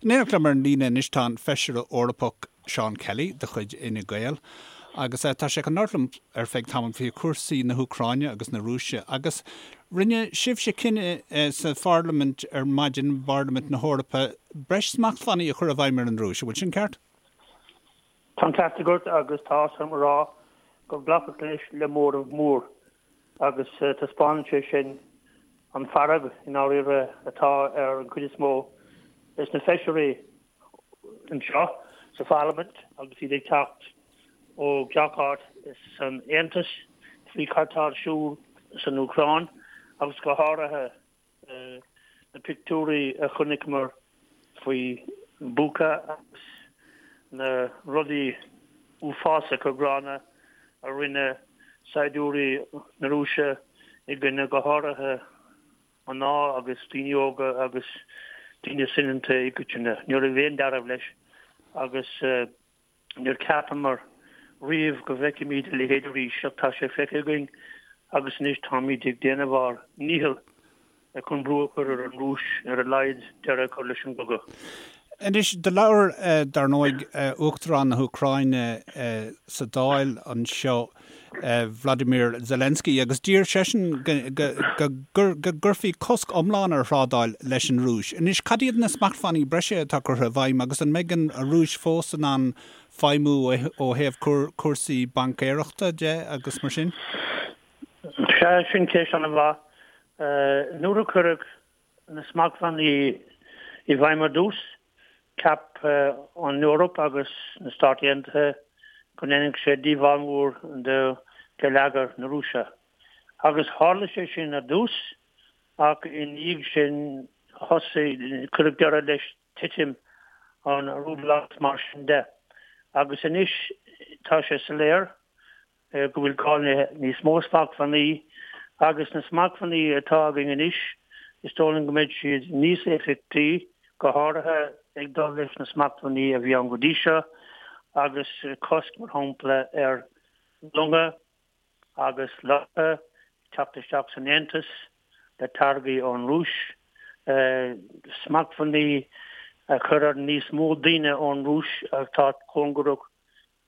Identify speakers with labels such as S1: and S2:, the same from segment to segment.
S1: In éineacht liom ar an líne anois tá an Feisire Eorpach Seán Kelly de chuid Fhine Gael agus tá sé chun labhairt liom ar feadh tamaill faoi chúrsaí na hÚcráine agus na Rúise agus rinne sibhse cinneadh sa Pharlaimint ar maidin, i bParlaimint na hEorpa, breis smachtbhannaí a chur i bhfeidhm ar an Rúis. An bhfuil sin ceart?
S2: Tá an ceart agat agus tá áthas orm a rá gur glacadh leis le móramh mór agus taispeánann sé sin an fearg i ndáiríre atá ar an chuid is mó des na feisirí anseo sa Pharlaimint agus iad ag teacht ó gach áit san Aontas faoi cad tá ar siúl san Úcráin agus go háirithe na pictiúirí a chonaiceamar faoi Bucha agus na rudaí uafásacha gránna a rinne saighdiúirí na Rúise i gcoinne go háirithe mná agus daoine óga agus daoine soineanta i gcoitinne. Ní raibh aon dealramh leis agus. Níor cheapamar riamh go bhfeicfimid a leithéid arís ach tá sé feicthe againn agus anois táimid ag déanamh ár ndícheall chun brú a chur ar an Rúis ar a laghad deireadh a chur leis an gcogadh.
S1: Anois, do labhair, dar ndóigh, Uachtarán na hÚcráine sa Dáil anseo, Vladimir Zelensky, agus d'iarr seisean go gcuirfí cosc iomlán ar thrádáil leis an Rúis. Anois, cad iad na smachtbhannaí breise atá curtha i bhfeidhm agus an mbeidh an Rúis fós in ann feidhmiú ó thaobh cúrsaí baincéireachta de agus mar sin?
S2: Sea, sin ceist an-mhaith. Nuair a cuireadh na smachtbhannaí i bhfeidhm ar dtús, Cheap an Eoraip agus na Stáit Aontaithe go ndéanfadh sé díobháil mhór do gheilleagar na Rúise. Agus tharla sé sin ar dtús, ach ina dhiaidh sin thosaigh, cuireadh deireadh leis titim an rúbla agus mar sin de. Agus anois tá sé soiléir go bhfuil gá le níos mó smachtbhannaí agus na smachtbhannaí atá againn anois, is dóigh liom go mbeidh siad níos éifeachtaí, go háirithe ag dul leis na smachtbhannaí a bhí ann go dtí seo agus cosc, mar shampla, ar longa agus leoraithe teacht isteach san Aontas le táirgí ón Rúis, smachtbhannaí a chur ar níos mó daoine ón Rúis atá cóngarach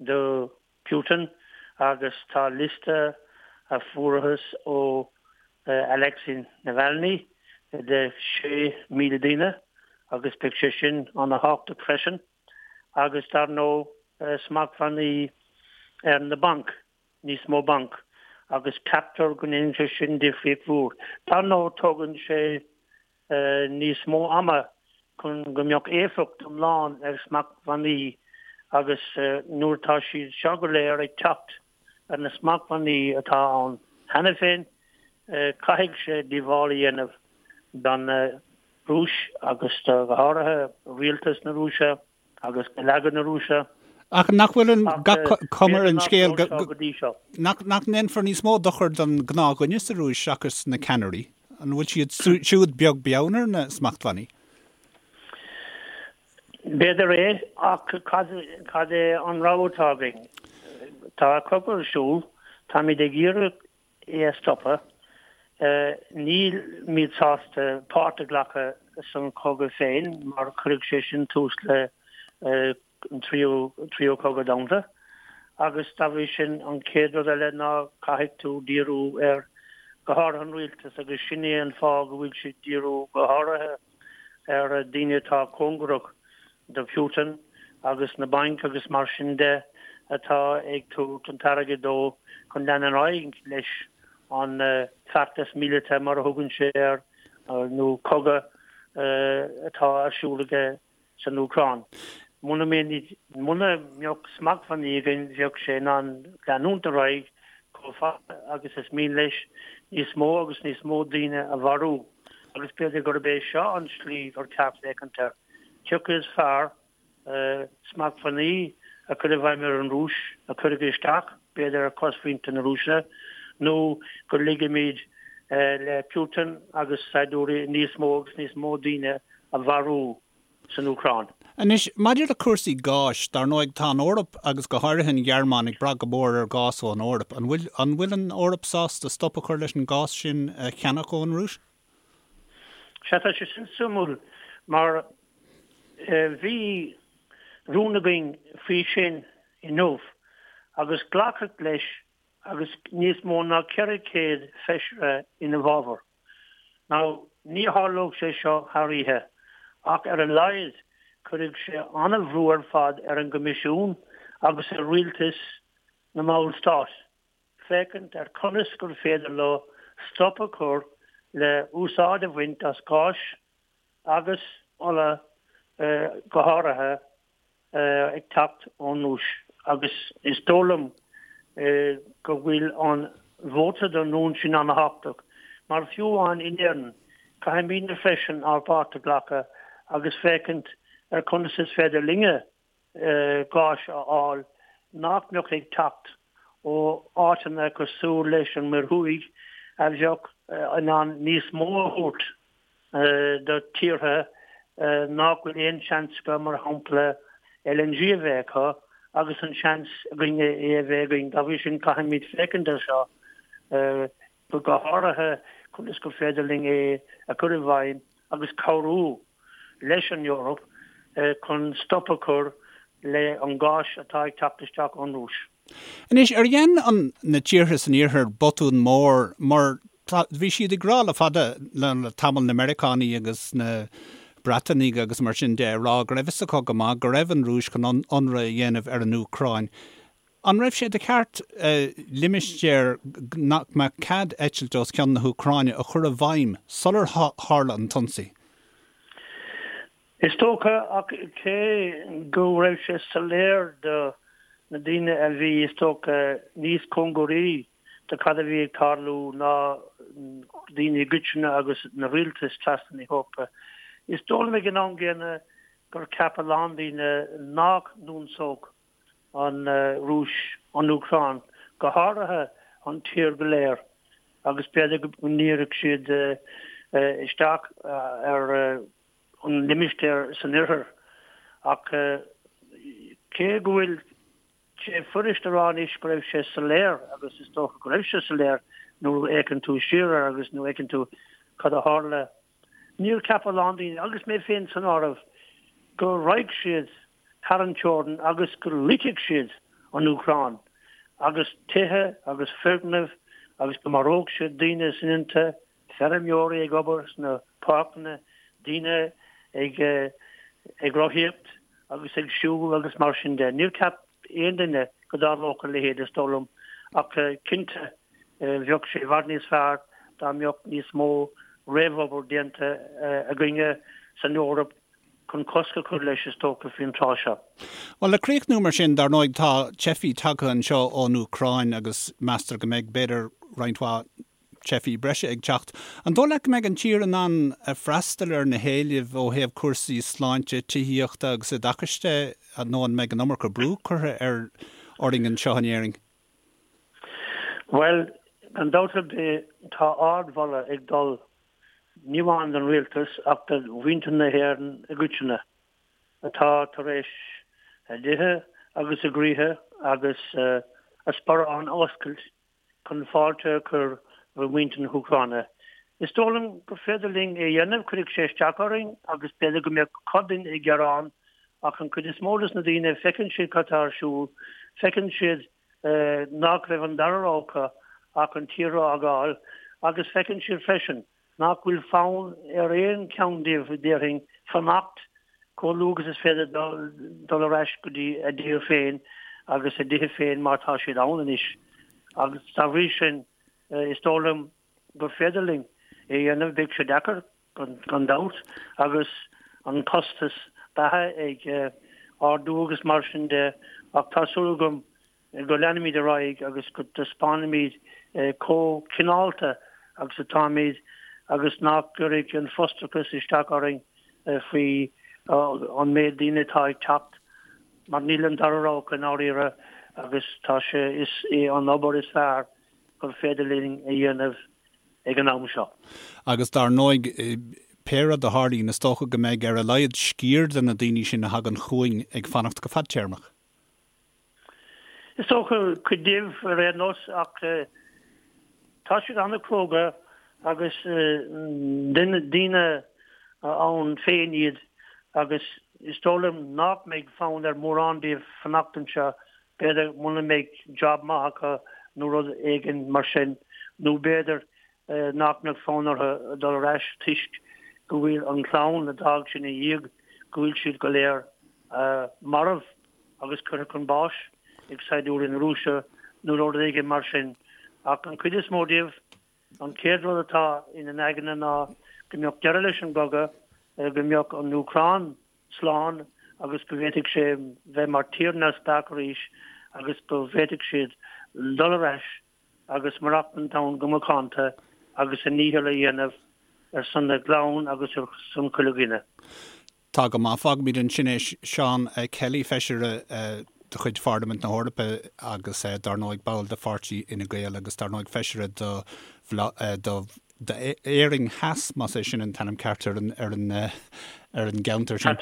S2: do Putin agus tá liosta a fuarthas ó Alexei Navalny de 6,000 daoine agus beidh sé sin ana-thábhachtach freisin agus dar ndóigh smachtbhannaí ar na bainc, níos mó banc agus ceaptar go ndéanfaidh sé sin difríocht mhór. Dar ndóigh tógann sé níos mó ama chun go mbeadh éifeacht iomlán ag smachtbhannaí agus nuair atá siad seo go léir ag teacht ar na smachtbhannaí atá ann cheana féin, caithfidh sé díobháil a dhéanamh don Rúis agus do, go háirithe, rialtas na Rúise. agus geilleagar na Rúise.
S1: Ach nach bhfuil an cuma ar an scéal go nach ndéanfar níos mó dochair don ghnáthdhuine sa Rúis seachas na ceannairí? An bhfuil siad siúd beag beann ar na smachtbhannaí?
S2: B'fhéidir é, ach cad é an rogha atá againn? Tá cogadh ar siúl, táimid ag iarraidh é a stopadh. Nílimid sásta páirt a ghlacadh san chogadh féin mar chuirfeadh sé sin tús le an tríú tríú cogadh domhanda agus dá bhrí sin an chéad rud eile ná caithfidh tú díriú ar go háirithe an rialtas agus sin é an fáth go bhfuil siad díriú go háirithe ar daoine atá cóngarach do Putin agus na bainc agus mar sin de atá ag tabhairt an t-airgead dó chun lean ar aghaidh leis an feachtas míleata mar a thugann sé air nó cogadh atá ar siúl aige san Úcráin. Muna mbeadh smachtbhannaí againn bheadh sé in ann leanúint ar aghaidh chomh fada agus is mian leis níos mó agus níos mó daoine a mharú agus b'fhéidir gurb é seo an tslí gur ceart féachaint air. Cé acu is fearr, smachtbhannaí a chur i bhfeidhm ar an Rúis, a chuirfidh isteach, b'fhéidir, ar chosmhuintir na Rúise, nó go ligimid le Putin agus saighdiúirí níos mó agus níos mó daoine a mharú san Úcráin.
S1: Anois, maidir le cúrsaí gáis, dar ndóigh, tá an Eoraip agus go háirithe an Ghearmáin ag brath go mór ar ghás ón Eoraip. An bhfuil, an bhfuil an Eoraip sásta stop a chur leis an gás sin a cheannach ón Rúis?
S2: Sea, tá sé sin suimiúil mar. Bhí rún againn faoi sin inniu agus glacadh leis agus níos mó ná 400 feisire ina bhfabhar. Now, ní tharlódh sé seo thar oíche, ach ar a laghad cuirfidh sé an-bhrú ar fad ar an gCoimisiún agus ar rialtais na mballstát féachaint ar conas gur féidir leo stop a chur le úsáid a bhaint as gás agus ola go háirithe ag teacht ón Rúis agus is dóigh liom go bhfuil an vóta don rún sin an-thábhachtach mar fiú amháin in Éirinn caithfimidne freisin ár bpáirt a ghlacadh agus féachaint ar conas is féidir linne gás a fháil nach mbeadh ag teacht ó áiteanna cosúil leis an Muir Thuaidh a bheadh in ann níos mó a thabhairt do tíortha nach bhfuil aon seans acu, mar shampla, LNG a bheith acu agus an seans againne é a bheith againn. Dá bhrí sin, caithfimid féachaint air seo, go háirithe conas gur féidir linn é a chur i bhfeidhm agus cabhrú leis an Eoraip chun stop a chur le an gás atá ag teacht isteach ón Rúis.
S1: Anois, ar dhein an, na tíortha san iarthar botún mór mar tá, bhí siad ag rá le fada, le, le tamall, na Meiriceánaigh agus na Breatanaigh agus mar sin de, ag rá go raibh fhios acu go maith go raibh an Rúis chun ionradh a dhéanamh ar an Úcráin. An raibh sé de cheart limistéar nach mbeadh cead eitilt os cionn na hÚcráine a chur i bhfeidhm sular tharla an t-ionsaí?
S2: Is dócha, ach cé go raibh sé soiléir do na daoine a bhí, is dócha, níos cóngaraí do cad a bhí ag tarlú ná daoine i gcoitinne agus na rialtais trasna na hEorpa, is dóigh liom ag an am gcéanna gur cheap a lán daoine nach n-ionsódh an Rúis an Úcráin, go háirithe an tír go léir, agus b'fhéidir go ndíreodh siad isteach ar an limistéar san oirthear. Ach cé go bhfuil sé fuirist a rá anois go raibh sé soiléir, agus is dócha go raibh sé soiléir nuair a fhéachann tú siar air agus nuair a fheiceann tú cad a tharla, níor cheap a lán daoine, agus mé féin san áireamh, go raghadh siad thar an teorainn agus go loitfeadh siad an Úcráin agus tithe agus foirgnimh agus go maródh siad daoine soineanta, feirmeoirí ag obair sna páirceanna, daoine ag ag rothaíocht agus ag siúl agus mar sin de. Níor cheap aon duine go dtarlódh a leithéid, is dóigh liom, ach cinnte bheadh sé i bhfad níos fearr dá mbeadh níos mó réamhobair déanta againne san Eoraip chun cosc a chur leis, is dócha, faoin tráth seo.
S1: Bhuel, le críochnú mar sin, dar ndóigh, tá teifigh tagtha anseo ón Úcráin agus meastar go mbeidh, b'fhéidir, roinnt mhaith teifigh breise ag teacht. An dóigh leat go mbeidh an tír in ann freastal ar na héilimh ó thaobh cúrsaí sláinte, tithíochta agus oideachais de nó an mbeidh an iomarca brú curtha ar orainn anseo in Éirinn?
S2: Bhuel, gan dabht ar bith, tá ardmholadh ag dul ní amháin don rialtas ach do mhuintir na hÉireann i gcoitinne atá tar éis a dtithe agus a gcroíthe agus a sparáin a oscailt chun fáilte a chur roimh mhuintir na hÚcráine. Is dóigh liom gur féidir linn é a dhéanamh, cuirfidh sé isteach orainn agus b'fhéidir go mbeadh cuid dínn ag gearán ach an chuid is mó des na daoine, feiceann siad cad tá ar siúl, feiceann siad nach raibh an dara rogha acu ach an tír a fhágáil agus feiceann siad freisin nach bhfuil fonn ar aon cheann díobh, déarfainn, fanacht chomh luath agus is féidir dul ar ais go dtí a dtír féin agus a dtithe féin mar tá siad ann anois. Agus dá bhrí sin, is dóigh liom gur féidir linn é a dhéanamh. Beidh sé deacair, gan dabht, agus an costas beatha ag ardú agus mar sin de, ach tá súil agam go leanfaimid ar aghaidh agus go dtaispeánfaimid chomh cineálta agus atáimid agus nach gcuirfidh an frustrachas isteach orainn faoi an méid daoine atá ag teacht mar níl an dara rogha acu i ndáiríre agus tá sé, is é an obair is fearr gur féidir linn a dhéanamh ag an am seo.
S1: Agus dar ndóigh, pé rud a tharlaíonn, is dócha go mbeidh ar a laghad sciar de na daoine sin a thagann chugainn ag fanacht go fadtéarmach.
S2: Is dócha, cuid díobh ar aon nós, ach tá siad an-chróga agus daoine ann féin iad agus. Is dóigh liom nach mbeidh fonn ar mhórán díobh fanacht anseo, b'fhéidir muna mbeidh job maith acu nó rud éigin mar sin, nó b'fhéidir nach mbeadh fonn orthu dul ar ais toisc go bhfuil an chlann a d'fhág siad ina dhiaidh, go bhfuil siad go léir marbh agus curtha chun báis ag saighdiúirí na Rúise nó rud éigin mar sin. Ach an chuid is mó díobh, An chéad rud atá ina n-aigne ná go mbeadh deireadh leis an gcogadh, go mbeadh an Úcráin slán agus go bhféadfadh sé bheith mar tír neamhspleách arís agus go bhféadfadh siad dul ar ais agus maireachtaint ann go macánta agus a ndícheall a dhéanamh ar son a gclann agus ar son chuile dhuine.
S1: Tá go maith. Fágfaimid ansin é. Seán Kelly, Feisire de chuid Pharlaimint na hEorpa agus dar ndóigh ball de pháirtí Fhine Gael agus dar ndóigh Feisire do d'Éirinn Theas, más é sin an t-ainm ceart ar an ar an ar an gceantar sin.